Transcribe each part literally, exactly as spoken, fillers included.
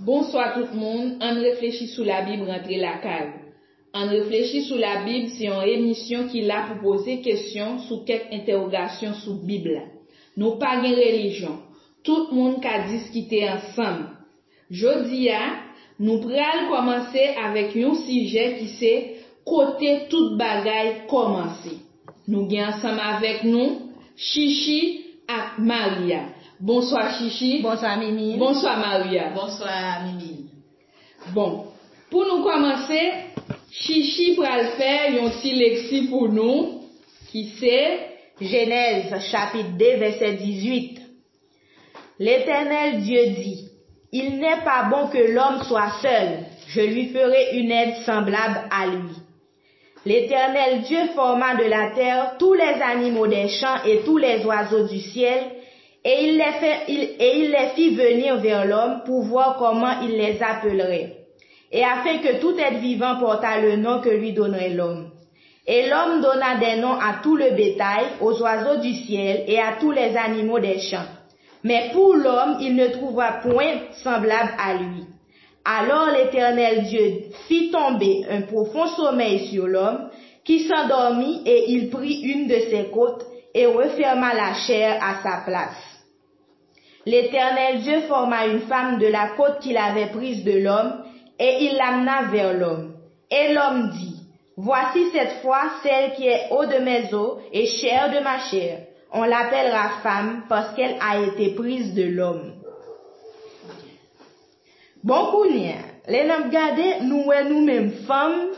Bonswa tout moun, ann reflechi sou Labib rantre lakay ou. Ann reflechi sou Labib se yon emisyon ki la pou poze kesyon sou kèk entèwogasyon sou Bib la. Nou pa gen relijyon. Tout moun ka diskite ansanm. Jodi a, nou pral kòmanse avèk yon sijè ki se kote tout bagay kòmanse. Nou gen ansanm avèk nou Chichi ak Maria. Bonswa Chichi. Bonswa Mimi. Bonswa Maria. Bonswa Mimi. Bon, pou nou kòmanse, Chichi pral fè yon ti lekti pou nou ki se Jenèz chapit de vèsè dizuit. L'Éternel Dieu dit, il n'est pas bon que l'homme soit seul, je lui ferai une aide semblable à lui. L'Éternel Dieu forma de la terre tous les animaux des champs et tous les oiseaux du ciel, et il les fait, il- et il les fit venir vers l'homme pour voir comment il les appellerait, et afin que tout être vivant portât le nom que lui donnerait l'homme. Et l'homme donna des noms à tout le bétail, aux oiseaux du ciel et à tous les animaux des champs. Mais pour l'homme, il ne trouva point semblable à lui. Alors l'Éternel Dieu fit tomber un profond sommeil sur l'homme, qui s'endormit, et il prit une de ses côtes, et referma la chair à sa place. L'Éternel Dieu forma une femme de la côte qu'il avait prise de l'homme, et il l'amena vers l'homme. Et l'homme dit, voici cette fois celle qui est eau de mes os et chair de ma chair. On l'appellera femme parce qu'elle a été prise de l'homme. Bon, kounye a, lè n ap gade, nou wè nou menm fanm,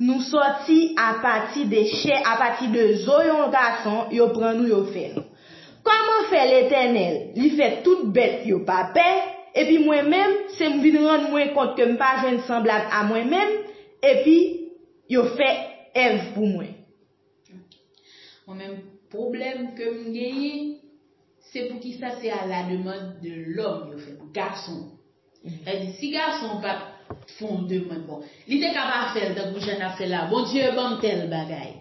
nou sòti apati de chè, apati de zo yon gason, yo pran nou, yo fè nou. Kòman fè Letènèl, li fè tout bèt yo pa pè, epi mwen menm, se m vin rann mwen kont ke m pa jwenn sanblab a mwen menm, epi yo fè Èv pou mwen? Mwen menm, pwoblèm ke m genyen, se poukisa se à la demande de l'homme yo fè l, gason. Sa di, si gason pa t fè yon demann, bon, li te ka pa fè l tankou jan n ap fè la, Bondye ban m tèl bagay.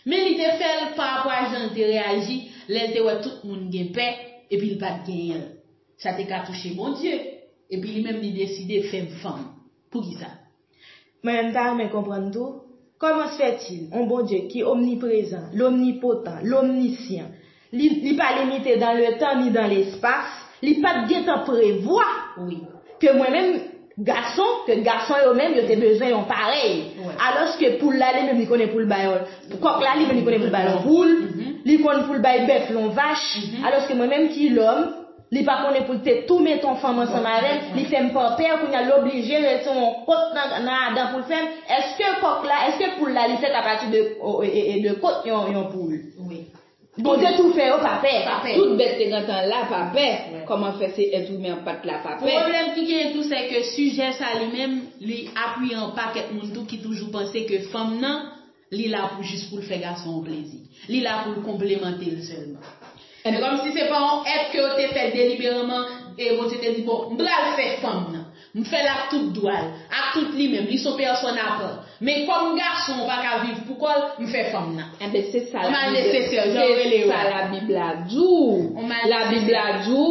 Men li te fè l pa rapò a jan l te reyaji lè l te wè tout moun gen pè, epi l pa t genyen l. Sa te ka touche Bondye, epi li menm li deside fè m fanm. Poukisa? Mwen menm ta renmen konprann tou, comment se fait-il, yon Bondye ki omniprezan, lomnipotan, lomnisyan, li, li pa limite dans le temps ni dans l'espace, li pa t gentan prevwa Wi. ke mwen menm, gason, ke gason yo menm, yo te bezwen yon parèy. Wi. Alòske poul la, li menm, li konnen pou l bay yon, kòk la, li menm, li konnen pou l bay yon poul, li konn pou l bay bèf, yon vach. Alòske mwen menm ki lòm, li pa konnen pou l te tou met yon fanm ansanm avè l, li fè m pa pè, kounye a l oblije rete yon kot nan, nan Adan pou l fè m. Èske kòk la, èske poul la, li fèt apati de, o, e, e, de kot yon, yon poul? Wi. Bondye tou fè yo pa pè. Pa pè. Tout bèt te gentan la pa pè. Kòman fè se èt imen an pa t la pa pè? Pwoblèm ki genyen tou, se ke sijè sa li menm, li apiye yon pakèt moun tou ki toujou panse ke fanm nan, li la pou jis pou l fè gason an plezi. Li la pou l konplemante l sèlman. Se kòmsi se pa yon èt ke yo te fè delibereman, e Bondye te di, bon, m pral fè fanm nan. M fè l ak tout dwa l, ak tout li menm, li se yon pèsòn apa. Men kòm gason an pa ka viv pou kò l, m fè fanm nan. Enben, se sa Kòm Labib, nesesè, jan yo rele se yo sa a. Labib la di w. Kòm nesesè. Labib la di w,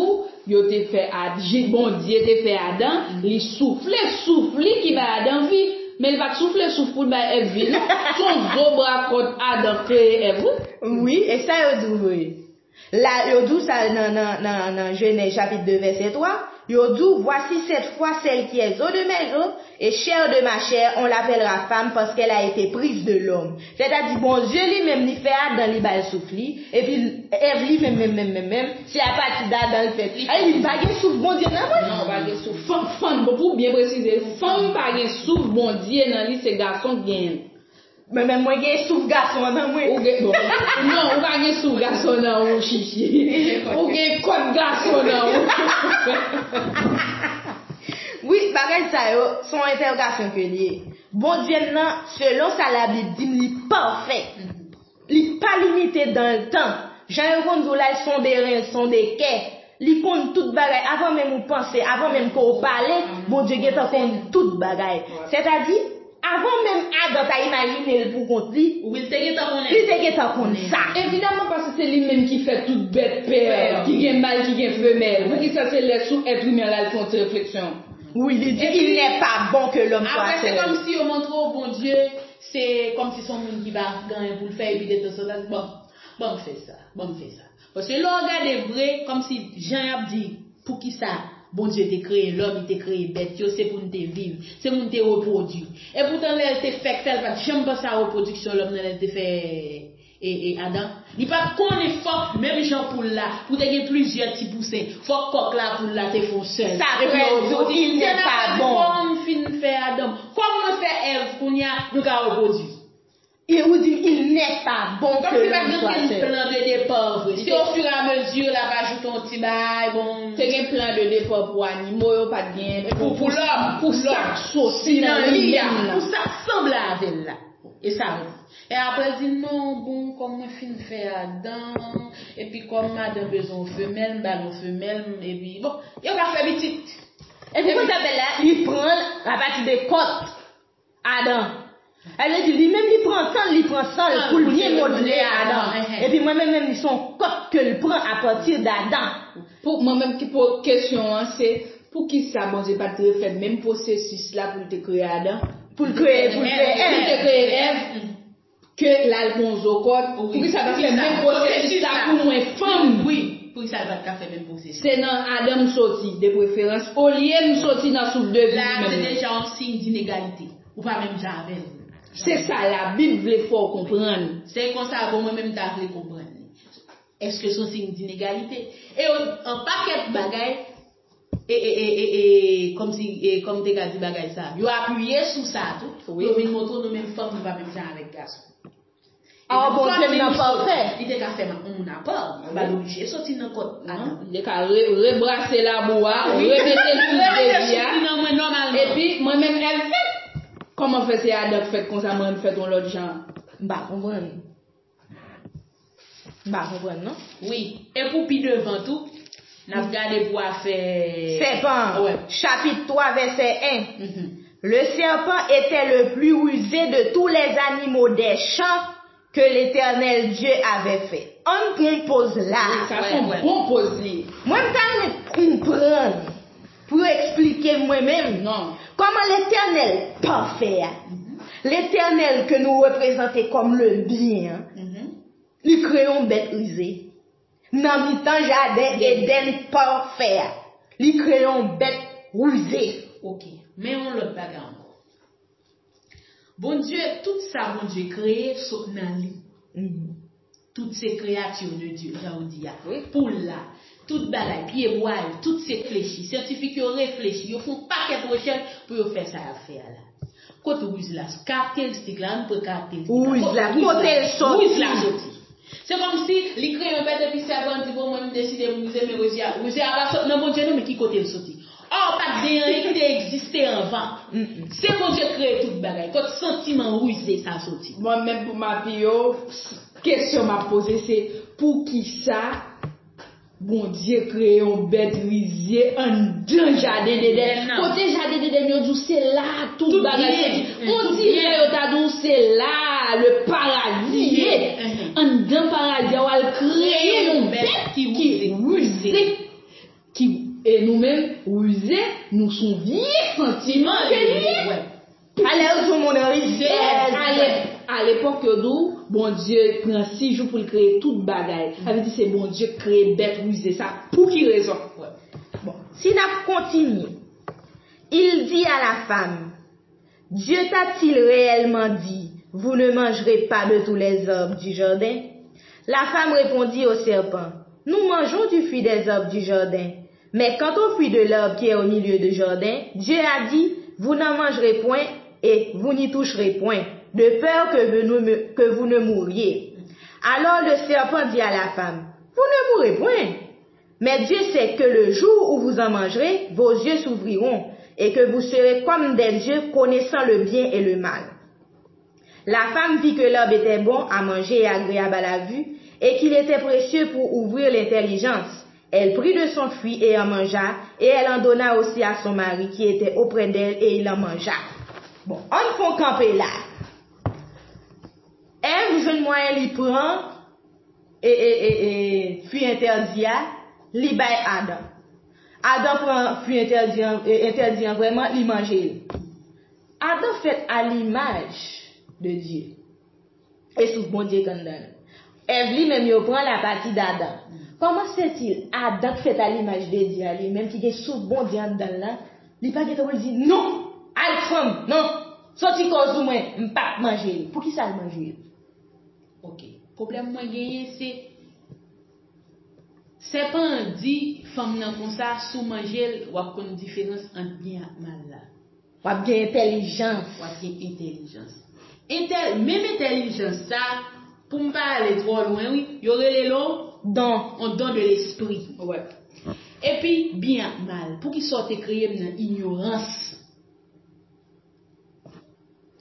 yo te fè Ad-, Bondye te fè Adan, li soufle souf li ki bay Adan vi. Men li pa t soufle souf pou l bay Èv vi, non. Se yon zo bra kòt Adan kreye Èv, wi. Wi, e sa yo di w vre. La, yo di w sa nan, nan, nan, nan Jenèz chapit de vèsè twa, yo di w, voici cette fois celle qui est os de mes os et chair de ma chair, on l'appellera femme parce qu'elle a été prise de l'homme. Sètadi, Bondye li menm, li fè Adan, li ba l souf li, epi Èv li menm, menm, menm, menm, menm, se apati d Adan l fèt. Ay, li pa gen souf Bondye nan mwen. Non, pa gen souf. Fanm, fanm, bon, pou byen presize, fanm pa gen souf Bondye nan li, se gason k genyen. Men, men mwen gen souf gason an nan mwen. Ou gen, bon, non, ou pa gen souf gason nan ou, Chichi. Ou gen kòt gason nan ou. Wi, bagay sa yo, se yon entèwogasyon ke li ye. Bondye m nan, selon sa Labib di m, li pafè. Li pa limite dans le temps. Jan yo konn di w la, son de ren, son de kè. Li konn tout bagay. Avan menm ou panse, avan menm ke w pale, Bondye gentan konn tout bagay. Sètadi, avan menm Adan ta imajine l pou kont li, Wi, l te gentan konnen. Li te gentan konn sa. Evidaman, paske se li menm ki fè tout bèt pè, ki gen mal, ki gen femèl. Poukisa se lè sou èt imen la, l fè yon ti refleksyon? Oui, li di, il n'est pas bon que l'homme soit seul. Apre, se kòmsi yo montre w Bondye, se kòmsi se yon moun ki pa gen anyen pou l fè, epi detanzantan, bon, ban m fè sa, ban m fè sa. Paske lè w gade vre, kòmsi jan y ap di, poukisa Bondye te kreye lòm, li te kreye bèt yo, se pou n te viv, se pou n te repwodui. Epoutan, lè l te fèk fè, l pa t janm panse a repwodiksyon lòm nan lè l te fè e, e Adan. Li pa t konnen fòk, menm jan poul la, pou te gen plizyè ti pousen, fòk kòk la, poul la te fè yon sèl. Sa vle di, il n'est pas bon. Kòm fin fè Adan, kòm mwen fè Èv, kounye a, nou ka repwodui. E ou di, il n'est pas bon que l'homme soit seul. Kòmsi pa t gen plan de départ vre. Se ofiramezu, l ap ajoute yon ti bagay, bon. Te gen plan de départ pou animo yo, pa t gen pou, pou lòm, pou sa k soti nan li menm nan. Pou sa k sanble avè l la. E sa vre. E apre l di, non, bon, kòm mwen fin fè Adan, epi kòm madanm bezwen yon femèl, m ba l yon femèl, epi, bon, yo ka fè pitit. Epi konsa bèl la, li pran l apati de kòt Adan. Sa vle di, li menm li pran tan l, li pran san l pou l byen modle Adan. Epi mwen menm, menm, li se yon kòt ke l pran apati d Adan. Pou mwen menm ki po kesyon an, se poukisa Bondye pa t refè menm pwosesis la pou l te kreye Adan? Pou l kreye, pou l kreye Èv. Pou l te kreye Èv, ke l al pran yon zo kòd, poukisa l pa fè menm pwosesis la pou mwen fanm? Wi, poukisa l pa t ka fè menm pwosesis? Se nan Adan m soti, de preferans, olye m soti nan souf de vi menm nan. La, se deja yon siy dinegalite. Ou pa menm jan avè l. Se sa Labib vle fè w konprann. Se konsa, bon, mwen menm ta vle konprann li. Èske se yon siy dinegalite? E yon, yon pakèt bagay, e, e, e, e, e, kòmsi, e, kòm te ka di bagay sa, yo apiye sou sa tou, pou yo vin montre w nou menm fanm, nou pa menm jan avèk gason. Ah, Bondye m nan pafè. Li te ka fè yon moun apa, li pa t oblije soti nan kòt Adan. Li te ka re-, rebrase labou a, remete l sou devi a. Epi, mwen menm, Èv fèt. Kòman fè se Adan k fèt konsa, mwen m fèt yon lòt jan? M pa konprann. M pa konprann, non. Wi. E pou pi devan tou, n ap gade pou afè sèpan an. Wè. Chapit twa, vèsè en. Mhm. Le serpent était le plus rusé de tous les animaux des champs que l'Éternel Dieu avait fait. Ann pran yon poz la. Wi, sa se yon bon poz li. Mwen, m ta renmen konprann pou yo eksplike mwen menm kòman Letènèl pafè a, Letènèl ke nou reprezante kòm le byen an, li kreye yon bèt rize nan mitan jaden Edenn pafè a. Li kreye yon bèt rize. Ok. Men yon lòt bagay ankò. Bondye, tout sa Bondye kreye sot nan li. Tout se créature de Dieu, jan yo di a. Wi. Poul la, tout bagay, pyebwa yo, tout se reflechi. Syantifik yo reflechi, yo fè yon pakèt rechèch pou yo fè sa y ap fè a la. Kot riz la, karakteristik la, ann pran karakteristik la. Riz la, kote l soti? Riz la soti. Se kòmsi li kreye yon bèt epi sèpan di, bon, mwen m deside m rize, men rize a, rize a pa sot nan Bondye non, men ki kote l soti? Ò, pa t gen anyen ki te egziste anvan. Se Bondye k kreye tout bagay. Kot santiman rize sa soti? Mwen menm pou m apiye w, kesyon m ap poze se, poukisa Bondye kreye yon bèt rize anndan jaden Edenn nan? Kote jaden Edenn yo di w se la tout bagay soti. On dirè yo ta di w se la le paradi ye. Anndan paradi a w al kreye yon bèt ki rize. Ki, e nou menm, rize, nou se yon vye santiman ke li ye. Alè yo di yon moun rize. A lepòk yo di w, Bondye pran sis jou pou l kreye tout bagay. Sa vle di se Bondye k kreye bèt rize sa. Pou ki rezon? Bon, si n ap kontinye, il dit à la femme, Dieu t'a-t-il réellement dit, vous ne mangerez pas de tous les arbres du jardin? La femme répondit au serpent, nous mangeons du fruit des arbres du jardin, mais quant au fruit de l'arbre qui est au milieu du jardin, Dieu a dit, vous n'en mangerez point et vous n'y toucherez point, de peur que vous ne, que vous ne mouriez. Alors le serpent dit à la femme, vous ne mourrez point. Mais Dieu sait que le jour où vous en mangerez, vos yeux s'ouvriront, et que vous serez comme des dieux, connaissant le bien et le mal. La femme vit que l'arbre était bon à manger et agréable à la vue, et qu'il était précieux pour ouvrir l'intelligence. Elle prit de son fruit et en mangea, et elle en donna aussi à son mari qui était auprès d'elle, et il en mangea. Bon, ann fè yon kanpe la. Èv jwenn mwayen li pran e, e, e, e, fwi entèdi a, li bay Adan. Adan pran fwi entèdi an, e, entèdi an vrèman, li manje l. Adan fèt a limaj de Dye. E souf Bondye k anndan l. Èv li menm yo pran l apati d Adan. Kòman se ti Adan k fèt a limaj de Dye a li menm ki gen souf Bondye anndan l la, li pa gentan pou l di, "Non, al fanm, non, soti koz ou mwen, m p ap manje l." Poukisa l manje l? Ok. Pwoblèm mwen genyen se, sèpan an di fanm nan konsa, si w manje l, w ap konn diferans ant byen ak mal la. W ap gen entèlijans. W ap gen entèlijans. Entèl, menm entèlijans sa, pou m pa ale twò lwen, wi, yo rele l on don, on don de lespri. Epi, byen ak mal. Poukisa w te kreye m nan inyorans?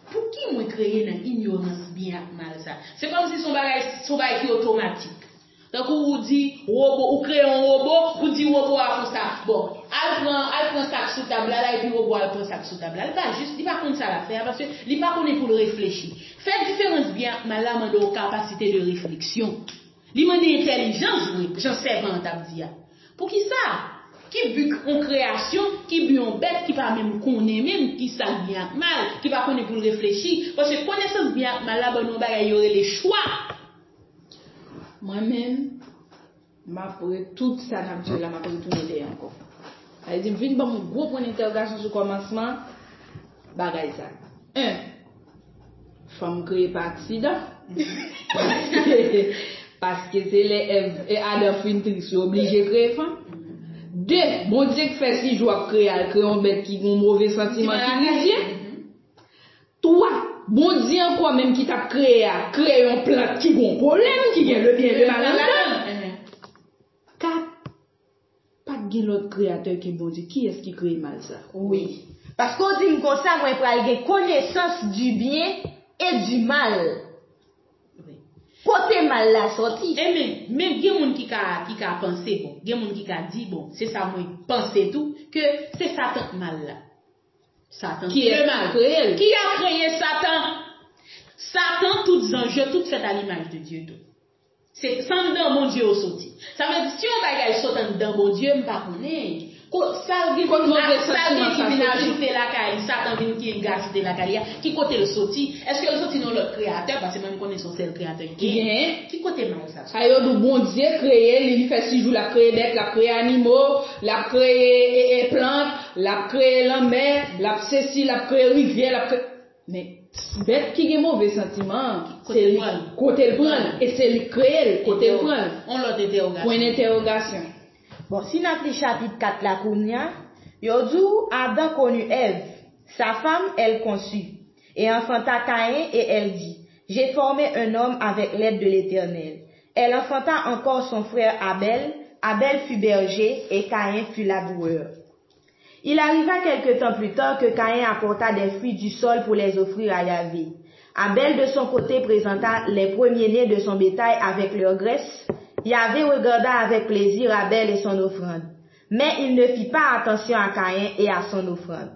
Pouki mwen kreye nan inyorans byen ak mal sa? Se kòmsi se yon bagay, se yon bagay ki otomatik. Tankou ou di wobo, ou kreye yon wobo, ou di wobo a konsa. Bon, al pran, al pran sa k sou tab la, la, epi wobo a al pran sa k sou tab la. Li pa jis, li pa konn sa l ap fè a, paske li pa konnen pou l reflechi. Fè diferans byen ak mal la mande yon kapasite de refleksyon. Li mande entèlijans vre, jan sèpan an t ap di a. Poukisa? Ki bi yon kreyasyon, ki bi yon bèt ki pa menm konnen menm ki sa k byen ak mal, ki pa konnen pou l reflechi? Paske konesans byen ak mal la ban nou yon bagay yo rele chwa. Mwen menm, m ap re tout sa n ap di yo la, m ap retounen dèyè ankò. Sa vle di, m vin ban m yon gwo pwen entèwogasyon sou kòmansman bagay sa. En, fanm kreye pa aksidan. Paske se lè Èv e Adan fin tris, yo oblije kreye fanm. De, Bondye k fè si jou ap kreye a, l kreye yon bèt ki gen yon move santiman, ki rizye. Twa, Bondye ankò menm ki t ap kreye a, kreye yon plant ki gen yon pwoblèm, ki gen le byen, le mal anndan. Kat, pa t gen lòt kreyatè ke Bondye. Kiyès ki kreye mal sa? Wi. Paske w di m konsa, mwen pral gen konesans du bien et du mal. Kote mal la sòti? Enben, men gen moun ki ka, ki ka panse, bon, gen moun ki ka di, bon, se sa mwen panse tou, ke se Satan k mal la. Satan ki le mal. Kreye l. Ki a kreye Satan? Satan, tout zanj yo, tout fèt a limaj de Dye tou. Se anndan Bondye yo soti. Sa vle di, si yon bagay sot anndan Bondye, m pa konnen. Sa vin ajoute lakay li, Satan vin ki vin ajoute lakay li a, ki kote l soti? Èske l soti nan lòt kreyatè? Paske mwen m konnen se yon sèl kreyatè ki genyen. Ki kote mal sa soti? Sa yo di w Bondye kreye li, li fè si jou l ap kreye bèt, l ap kreye animo, l ap kreye e, e, plant, l ap kreye lanmè, l ap sesi, l ap kreye rivyè, l ap kreye. Men, bèt ki gen move santiman an, se li, kote l pran l, e se li k kreye l, kote l pran l. Yon lòt entèwogasyon. Pwen entèwogasyon. Bon, si n ap li chapit kat la kounye a, yo di w, Adam connut Èv, sa femme, elle conçut, et enfanta Caïn, et elle dit, J'ai formé un homme avec l'aide de l'Éternel. Elle enfanta encore son frère Abel. Abel fut berger, et Caïn fut laboureur. Il arriva quelque temps plus tard que Caïn apporta des fruits du sol pour les offrir à Yahvé. Abel, de son côté, présenta les premiers-nés de son bétail avec leur graisse. Yahvé regarda avec plaisir Abel et son offrande, mais il ne fit pas attention à Caïn et à son offrande.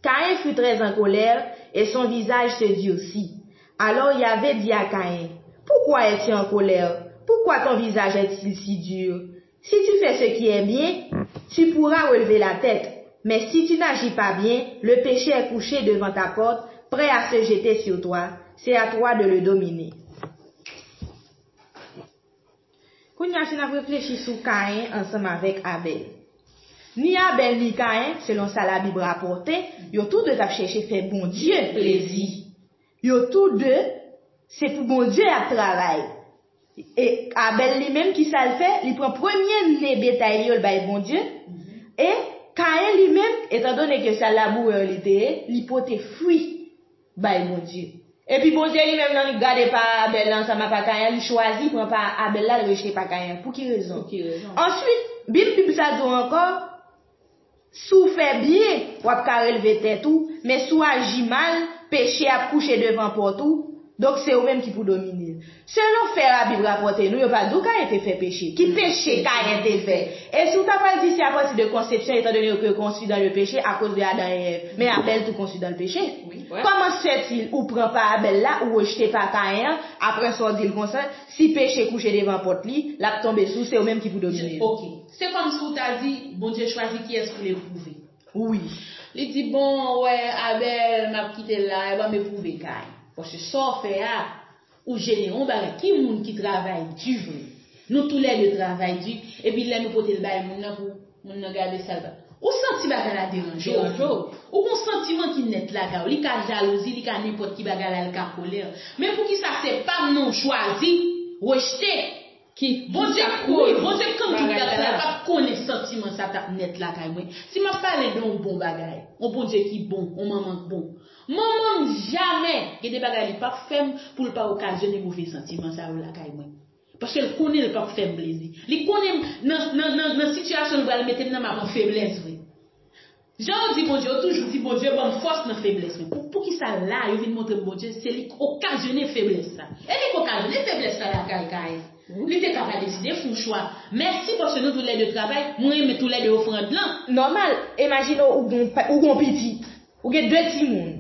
Caïn fut très en colère et son visage se durcit. Alors Yahvé dit à Caïn, Pourquoi es-tu en colère? Pourquoi ton visage est-il si dur? Si tu fais ce qui est bien, tu pourras relever la tête. Mais si tu n'agis pas bien, le péché est couché devant ta porte, prêt à se jeter sur toi. C'est à toi de le dominer. Kounye a, si n ap reflechi sou Kayen ansanm avèk Abèl. Ni Abèl ni Kayen, selon sa Labib rapòte, yo tou de t ap chèche fè Bondye plezi. Yo tou de, se pou Bondye y ap travay. E Abèl li menm, ki sa l fè? Li pran premye ne betay li yo, l bay Bondye. E Kayen li menm, etandone ke se labourè li te ye, li pote fwi bay Bondye. Epi Bondye li menm, nan li gade pa Abèl la ansanm ak pa Kayen, li chwazi pran pa Abèl la, l rejte pa Kayen. Pou ki rezon? Pou ki rezon? Answit, Bib, Bib sa di w ankò, si w fè byen, w ap ka relve tèt ou, men si w aji mal, peche ap kouche devan pòt ou, Donk, se ou menm ki pou domine l. Selon fè Labib rapòte nou, yo pa di w Kayen te fè peche. Ki peche Kayen te fè? E si w ta pral di se apati de konsepsyon, etandone ke conçu dans le péché, akoz de Adan e Èv. Men Abèl tou conçu dans le péché. Wi. Kòman se fè ou pran pa Abèl la, ou rejte pa Kayen an, apre sa w di l konsa, si peche kouche devan pòt li, l ap tonbe sou, se ou menm ki pou domine l. Ok. Se kòmsi w ta di, Bondye chwazi kiyès pou l epwouve. Wi. Li di, bon, wè, Abèl, m ap kite l la, e ban m epwouve Kayen. Paske sa w fè a, ou jene yon bagay. Ki moun ki travay di vre? Nou toulède travay di, epi lè nou pote l bay moun nan pou moun nan gade sa l ba. Ou santi bagay la deranje w. Deranje w. Ou gon santiman ki nèt lakay ou. Li ka jalouzi, li ka nenpòt ki bagay la, li ka kolè. Men poukisa se pa m non w chwazi, rejte? Ki, Bondye, ki sa wi, koz Bondye konn tout bagay bagay sa, la. L ap konnen santiman sa t ap nèt lakay mwen. Si m ap pale de yon bon bagay, yon Bondye ki bon, yon manman k bon. Manman m jamè, gen de bagay li p ap fè m pou l pa okazyone move santiman sa yo lakay mwen. Paske l konnen l p ap fè m plezi. Li konnen m nan, nan, nan, nan sitiyasyon l pral mete m nan, m ap an feblès vre. Jan yo di Bondye, yo toujou di Bondye ban m fòs nan feblès mwen. Pou, poukisa la, yo vin montre m Bondye, se li k okazyone feblès sa. E li k okazyone feblès sa lakay Kayen. Li te ka pa deside fè yon chwa. Mèsi paske nou toulède travay, mwen renmen toulède ofrann lan. Nòmal, imajine w, ou gon, ou gon pitit, ou gen de timoun.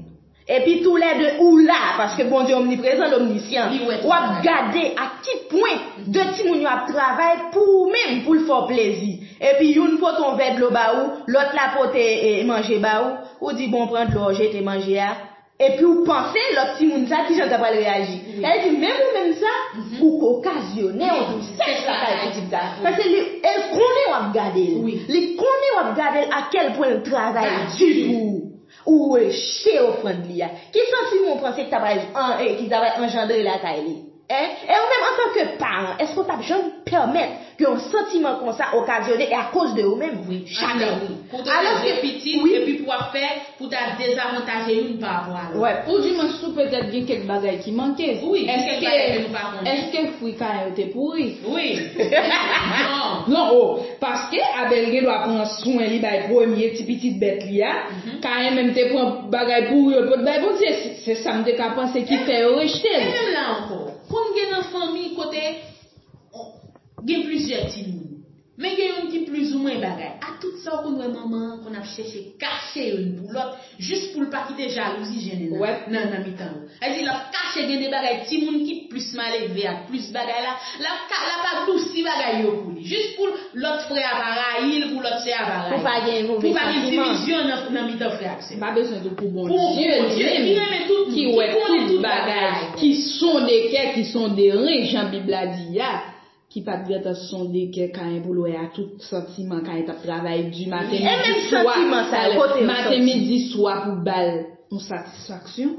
Epi toulède ou la, paske Bondye omniprezan, l omnisyan. Li wè tout bagay. W ap gade a ki pwen de timoun yo ap travay pou ou menm, pou l fè w plezi. Epi youn pote yon vè dlo ba ou, lòt la pote, e, manje ba ou, ou di, bon, pran dlo a, w jete manje a. Epi w panse lòt timoun sa, kijan l ta pral reyaji? Wi. Sa vle di, menm ou menm sa, mhm, ou k okazyone yon tristès lakay pitit sa. Paske li, e l konnen w ap gade l. Wi. Li konnen w ap gade l, a kèl pwen l travay di pou ou. Ou rejte ofrann li a. Ki santiman w panse ki ta pral, an, e, ki ta pral anjandre lakay li? Hein? E ou menm, antanke paran, èske w t ap janm pèmèt ke yon santiman konsa okazyone e akoz de ou menm? Wi, chak lè, wi. Pou w te leve pitit, wi, epi pou w ap fè, pou w ta dezavantaje youn pa rapò a lòt. Wè. Oudimwens tou petèt gen kèk bagay ki manke. Wi, gen kèk bagay ke nou pa konnen. Èske fwi Kayen yo te pouri? Wi. Non. Non, o. Paske Abèl gen dwa pran swen li bay premye ti pitit bèt li a. Mhm. Kayen menm te pran bagay pouri yo l pot bay Bondye. Se, se sa m te ka panse ki fè yo rejte l. E menm la ankò, konn gen nan fanmi kote gen plizyè timoun. Men gen youn ki plizoumwen bagay. A tout sa, w konn wè manman an konn ap chèche kache youn pou lòt, jis pou l pa kite jalouzi jennen nan, nan, nan mitan yo. Sa vle di, l ap kache gen de bagay, timoun ki plis malelve ak plis bagay la, l ap ka, l ap adousi bagay yo pou li. Jis pou lòt frè a pa rayi l, pou lòt sè a pa rayi l. Pou pa gen move santiman. Pou pa gen divizyon nan, nan mitan frè ak sè. M pa bezwen di w pou Bondye li menm ki wè tout bagay, ki sonde kè, ki sonde ren, jan Bib la di a. Ki pa t gentan sonde kè Kayen pou l wè a tout santiman Kayen t ap travay di maten, midi, swa, maten, midi, swa pou ba l yon satisfaksyon.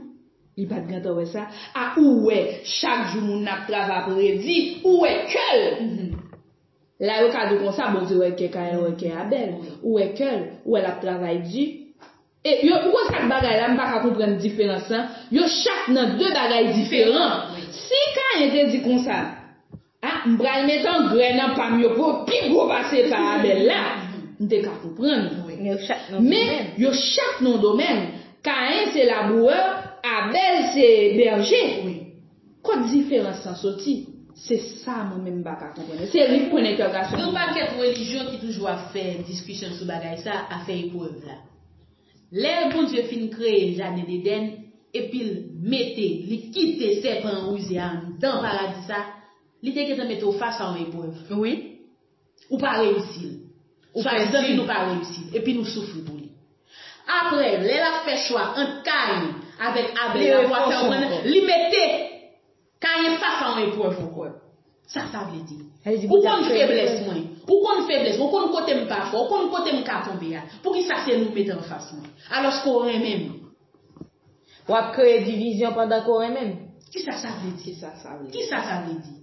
Li pa t gentan wè sa. A ou wè, chak jou moun nan ap travay ap redi, ou wè kè l. La yo ka di w konsa, Bondye wè kè Kayen, wè kè Abèl. Ou wè kè l, ou wè l ap travay di. E yo, ou konn sa k bagay la, m pa ka konprann diferans lan. Yo chak nan de bagay diferan. Si Kayen te di konsa, a, m pral met angrè nan pa m yo pou yo pi gwo pase pa Abèl la, m te ka konprann. Men yo chak nan yon domèn. Kayen se labourè, Abèl se bèje. Kot diferans lan soti? Se sa mwen menm m pa ka konprann. Se li k pwen entèrogasyon. Gen yon pakèt relijyon ki toujou ap fè diskisyon sou bagay sa, afè eprèv la. Lè Bondye fin kreye jaden Edenn, epi l mete, li kite sèpan an rize a anndan paradi sa, li te gentan mete w fas a yon eprèv. Wi. Ou pa reyisi l. Ou pa di zanmi nou pa reyisi l. Epi nou soufri pou li. Apre, lè l ap fè chwa ant Kayen avèk Abèl la pou ap fè w konn, li mete Kayen fas a yon eprèv ankò. Sa sa vle di? Ou konn feblès mwen. Ou konn feblès mwen. Ou konn kote m pa fò. Ou konn kote m ka tonbe a. Poukisa se nou mete anfas mwen? Alòske w renmen m. W ap kreye divizyon pandan ke w renmen m. Kisa sa vle di? Kisa sa vle di? Kisa sa vle di?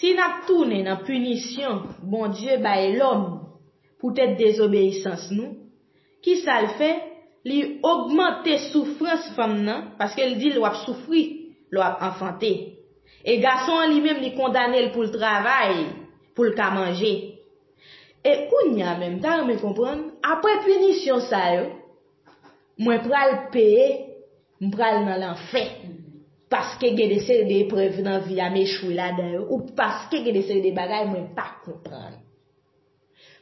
Si n ap tounen nan pinisyon Bondye bay lòm poutèt dezobeyisans nou, kisa l fè? Li ogmante soufrans fanm nan, paske l di l w ap soufri lè w ap anfante. E gason an li menm, li kondane l pou l travay, pou l ka manje. E kounye a menm, m ta renmen konprann, apre pinisyon sa yo, Mwen pral peye, m pral nan lanfè. Paske gen de seri de eprèv nan vi a m echwe ladan yo, ou paske gen de seri de bagay mwen pa konprann.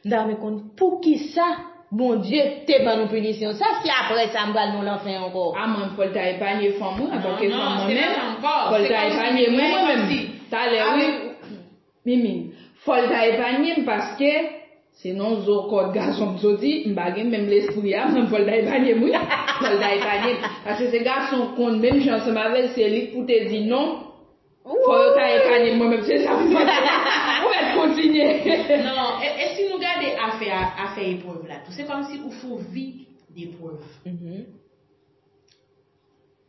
M ta renmen konn poukisa Bondye te ban nou pinisyon sa, si apre sa m pral nan lanfè ankò. A mwen, fò l ta epanye fanm mwen, antanke fanm mwen menm, fò l ta epanye mwen, mwen menm. Talè, wi. Mimi, fò l ta epanye m paske se nan zo kòd gason m soti, m pa gen menm lespri a, mwen fò l ta epanye m, wi. Fò l ta epanye m. Paske se gason konn menm jan ansanm avè l, se li k pou te di non. Fò yo ta epanye m, mwen menm, se sa m panse. Ou mèt kontinye. Non, e, e si nou gade afè, afè eprèv la tou, se kòmsi ou fè yon vi deprèv.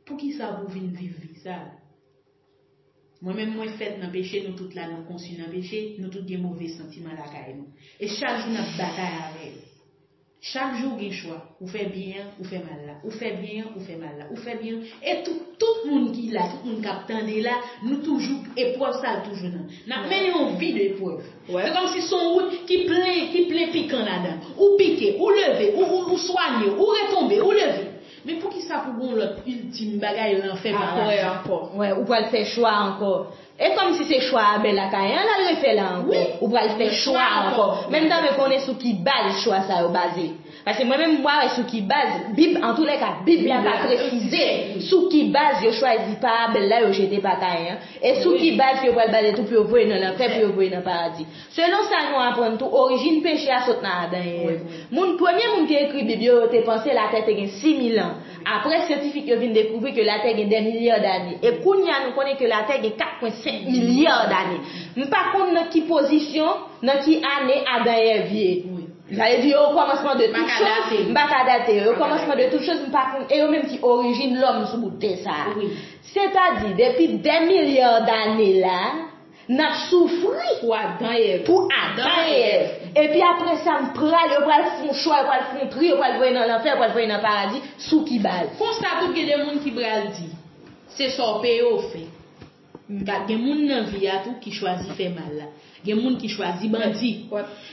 Poukisa pou w vin viv vi sa? Mwen menm, mwen fèt nan peche, nou tout la, nou konsi nan peche, nou tout gen move santiman lakay nou. E chak jou n ap batay avè yo. Chak jou gen chwa, ou fè byen an, ou fè mal la, ou fè byen an, ou fè mal la, ou fè byen an. E tout, tout moun ki la, tout moun k ap tande la, nou toujou, eprèv sa a toujou nan. N ap mennen yon vi de eprèv. Se kòmsi se yon wout ki plen, ki plen pikan ladan. Ou pike, ou leve, ou, ou, ou swanye, ou retonbe, ou leve. Men poukisa pou gon lòt iltim bagay lanfè pa la? Apre ankò. Wè, ou pral fè chwa ankò. E kòmsi se chwa a bèl lakay an, l al refè la ankò. Ou pral fè chwa ankò. Men m ta vle konnen sou ki baz chwa sa yo baze. Paske mwen menm, m pa wè sou ki baz, Bib, antoulèka, Bib la pa presize sou ki baz yo chwazi pa a bèl la, yo jete pa Kayen an. E sou ki baz yo pral baze tou pou yo voye nan lanfè, pou yo voye nan paradi. Selon sa nou aprann tou, orijin peche a sot nan Adan e Èv. Moun, premye moun ki ekri Bib yo, yo te panse latè te gen sis mil an. Apre, syantifik yo vin dekouvri ke latè gen dè milya dane. E kounye a, nou konnen ke latè gen kat pwen senk milya dane. M pa konn nan ki pozisyon, nan ki ane Adan e Èv ye. Sa vle di, yo okòmansman de tout choz, m pa ka date yo. Yo okòmansman de tout choz, m pa konn, e yo menm ki orijin lòm sou bout tè sa a. Sètadi, depi dè milya dane la, n ap soufri pou Adan e Èv. Pou Adan e Èv. Epi apre sa, m pral, yo pral fè yon chwa, yo pral fè yon tri, yo pral voye nan lanfè, yo pral voye nan paradi, sou ki baz? Konsa tou gen de moun ki pral di, se sa w peye w fè. Gen moun nan vi a tou ki chwazi fè mal la. Gen moun ki chwazi bandi.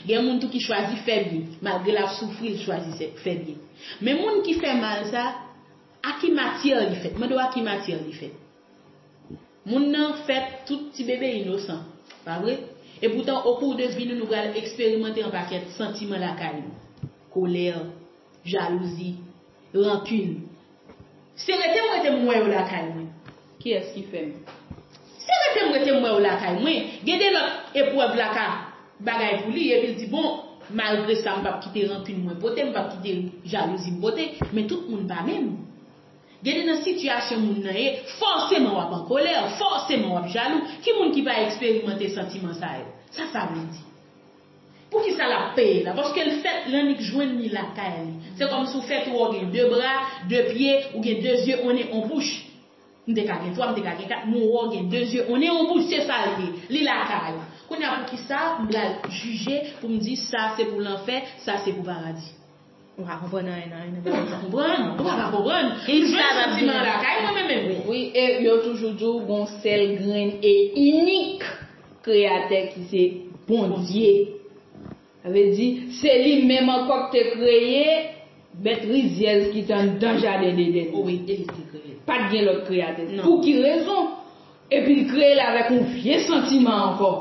Gen moun tou ki chwazi fè byen. Malgre l ap soufri, l chwazi fè byen. Men moun ki fè mal sa, a ki matyè li fèt? Mande w a ki matyè li fèt. Moun nan fèt tout ti bebe inosan, pa vre? Epoutan, okou de vi nou, nou pral eksperimante yon pakèt santiman lakay nou. Kolè, jalouzi, rankin. Se rete m rete m wè yo lakay mwen. Kiyès ki fè m? Se rete m rete m wè yo lakay mwen. Gen de lòt eprèv la ka bagay pou li, epi l di, bon, malgre sa, m p ap kite rankin mwen pote, m p ap kite jalouzi m pote, men tout moun pa menm. Gen de nan sitiyasyon moun nan ye, fòseman w ap an kolè, fòseman w ap jalou. Ki moun ki pa eksperimante santiman sa yo? Sa sa vle di? Poukisa l ap peye la? Paske l fèt l annik jwenn li lakay li. Se kòmsi w fèt ou wè w gen de bra, de pye, ou gen de zye, on nen, on bouch. M te ka gen twa, m te ka gen kat, men w wè w gen de zye, on nen, on bouch, se sa l ye. Li lakay ou. Kounye a poukisa m pral jije pou m di sa se pou lanfè, sa se pou paradi? Ou pa konprann anyen nan, nan bagay sa. Ou pa konprann, ou pa ka konprann. M jwenn santiman lakay mwen menm menm. Wi, e yo toujou di w gon sèl grenn e inik Kreyatè ki se Bondye. Sa vle di, se li menm ankò ki te kreye bèt rizyèz ki te anndan jaden Edenn. Wi, e li ki te kreye l. Pa t gen lòt kreyatè. Non. Pou ki rezon? Epi l kreye l avèk yon vye santiman ankò.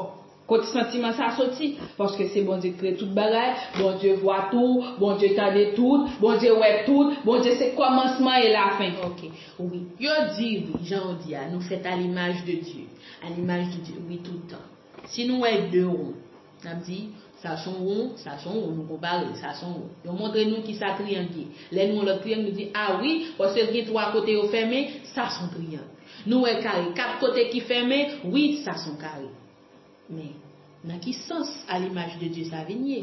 Kot santiman sa soti? Paske se Bondye ki kreye tout bagay, Bondye vwa tou, Bondye tande tout, Bondye wè tout, Bondye se kòmansman e lafen. Ok, wi. Yo di, wi, jan w di a, nou fèt a limaj de Dye. A limaj de Dye, wi, tout tan. Si nou wè de won, n ap di, sa se yon won, sa se yon won, nou konpare, sa se yon won. Yo montre nou kisa triyang ye. Lè nou wè yon lòt triyang, nou di, a wi, paske l gen twa kote yo fèmen, sa se yon triyang. Nou wè kare, kat kote ki fèmen, wi, sa se yon kare. Men, nan ki sans a limaj de Dye sa vin ye?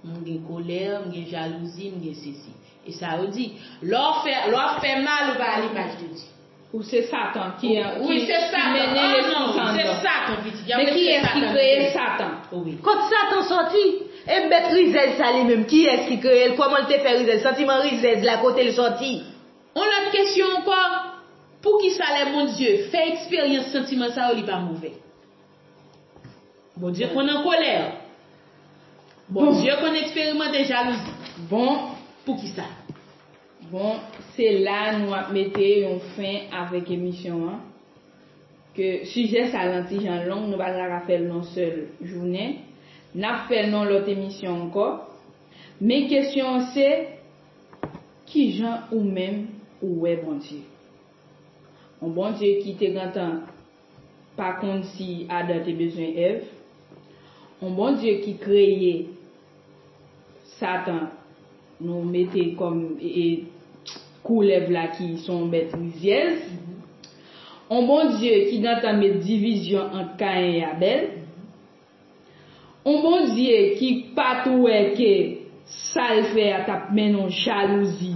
M gen kolè, m gen jalouzi, m gen sesi. E sa yo di, lè w fè, lè w ap fè mal, ou pa a limaj de Dye. Ou se Satan ki, ki, ki mennen lespri sa anndan. Se Satan, pitit. Men kiyès ki kreye Satan? Wi. Kot Satan sòti? E bèt rizèz sa li menm, kiyès ki kreye l? Kòman l te fè rizèz? Santiman rizèz la, kote l sòti? Yon lòt kesyon ankò, poukisa lè Bondye fè eksperyans santiman sa yo, li pa move? Bondye konn an kolè. Bondye konn eksperimante jalouzi. Bon. Poukisa? Bon, se la nou ap mete yon fen avèk emisyon an. Ke sijè sa lan ti jan long, nou pa ta ka fè l nan sèl jounen. N ap fè l nan lòt emisyon ankò. Men kesyon an se, kijan ou menm ou wè Bondye? Yon Bondye ki te gentan pa konn si Adan te bezwen Èv. Yon Bondye ki kreye Satan, nou mete kòm e, e, koulèv la ki se yon bèt rizyèz. Yon Bondye ki gentan met divizyon ant Kayen e Abèl. Yon Bondye ki pa t wè ke sa l fè a t ap mennen yon jalouzi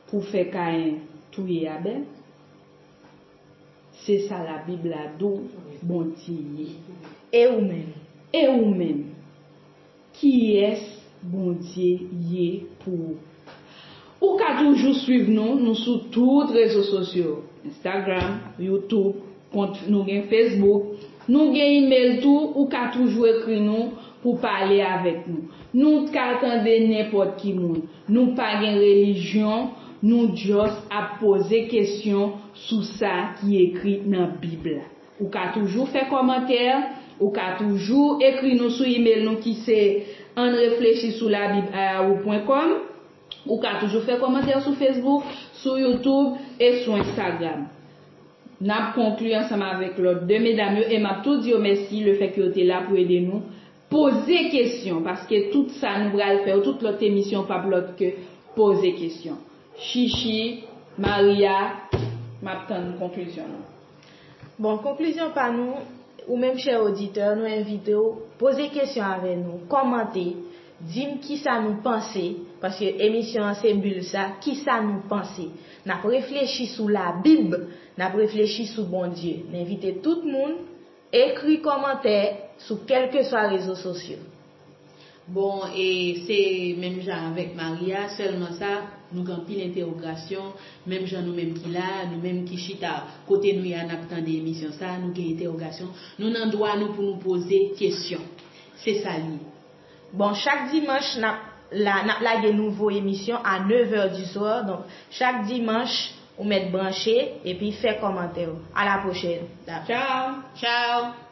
pou fè Kayen touye Abèl. Se sa Labib la di w Bondye ye. E ou menm? E ou menm? Kiyès Bondye ye pou ou? Ou ka toujou swiv nou, nou sou tout rezo sosyo, Instagram, YouTube, kont nou gen Facebook, nou gen email tou, ou ka toujou ekri nou pou pale avèk nou. Nou ka tande nenpòt ki moun. Nou pa gen relijyon, nou just ap poze kesyon sou sa ki ekri nan Bib la. Ou ka toujou fè kòmantè, ou ka toujou ekri nou sou email nou ki se ann reflechi sou labib a yahoo pwen kòm. Ou ka toujou fè kòmantè sou Facebook, sou YouTube e sou Instagram. N ap konkli ansanm avèk lòt de medam yo e m ap tou di yo mèsi lefètke yo te la pou ede nou poze kesyon, paske tout sa nou pral fè yo, tout lòt emisyon p ap lòt ke poze kesyon. Chichi, Maria, m ap tann konklizyon nou. Bon, konklizyon pa nou, ou menm chè oditè, nou envite w poze kesyon avè nou, kòmante, di m kisa nou panse, paske emisyon an se bil sa, kisa nou panse. N ap reflechi sou Labib, n ap reflechi sou Bondye. N envite tout moun ekri kòmantè sou kèlkeswa rezo sosyo. Bon, e se menm jan avèk Maria, sèlman sa, nou gen anpil entèwogasyon, menm jan nou menm ki la, nou menm ki chita kote nou ye a n ap tande emisyon sa, nou gen entèwogasyon, nou nan dwa nou pou nou poze kesyon. Se sa l ye. Bon, chak dimanch n ap la, n ap lage nouvo emisyon a nèv è di swa. Donk, chak dimanch, ou mèt branche epi fè kòmantè w. A la pwochèn. Tchao. Tchao.